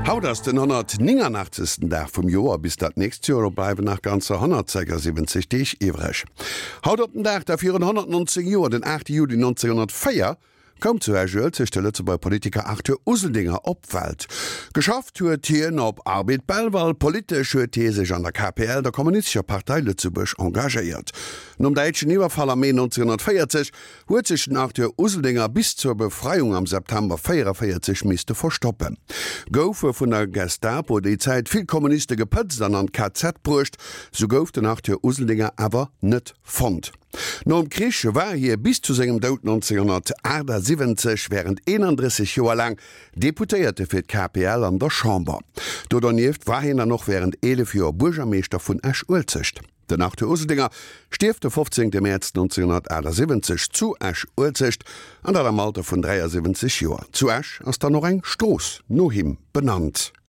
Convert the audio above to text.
Haut ass den 189. Dag vum Joer. Bis dat nächst Joer bleiwen nach ganzer 176 Deeg iwwreg. Haut op den Dag da virun 119 Joer, den 8 Juli 1904, koum zu Esch-Uelzecht de Lëtzebuerger Politiker Arthur Useldinger op d'Welt. Geschafft huet hien op Arbed Belval, politesch huet hie sech an der KPL, der Kommunistescher Partei Lëtzebuerg, engagéiert. Nom däitschen Iwwerfall am Mee 1940 huet sech den Arthur Useldinger bis zur Befreiung am September 44 misste verstoppen. Goufe vun der Gestapo déi Zäit vill Kommuniste gepëtzt an an d'KZ bruecht, sou gouf den Arthur Useldinger awer net fonnt. Nom Krich war hie bis zu sengem Doud 1978 wärend 31 Joer laang Deputéierte fir d'KPL an der Chamber. Do dernieft war hien dann och wärend 11 Joer Buergermeeschter vun Esch-Uelzecht. Den Arthur Useldinger stierft de 15 Mäerz 1978 zu Esch-Uelzecht, an dat am Alter vun 73 Joer. Zu Esch ass dann och eng Strooss no him benannt.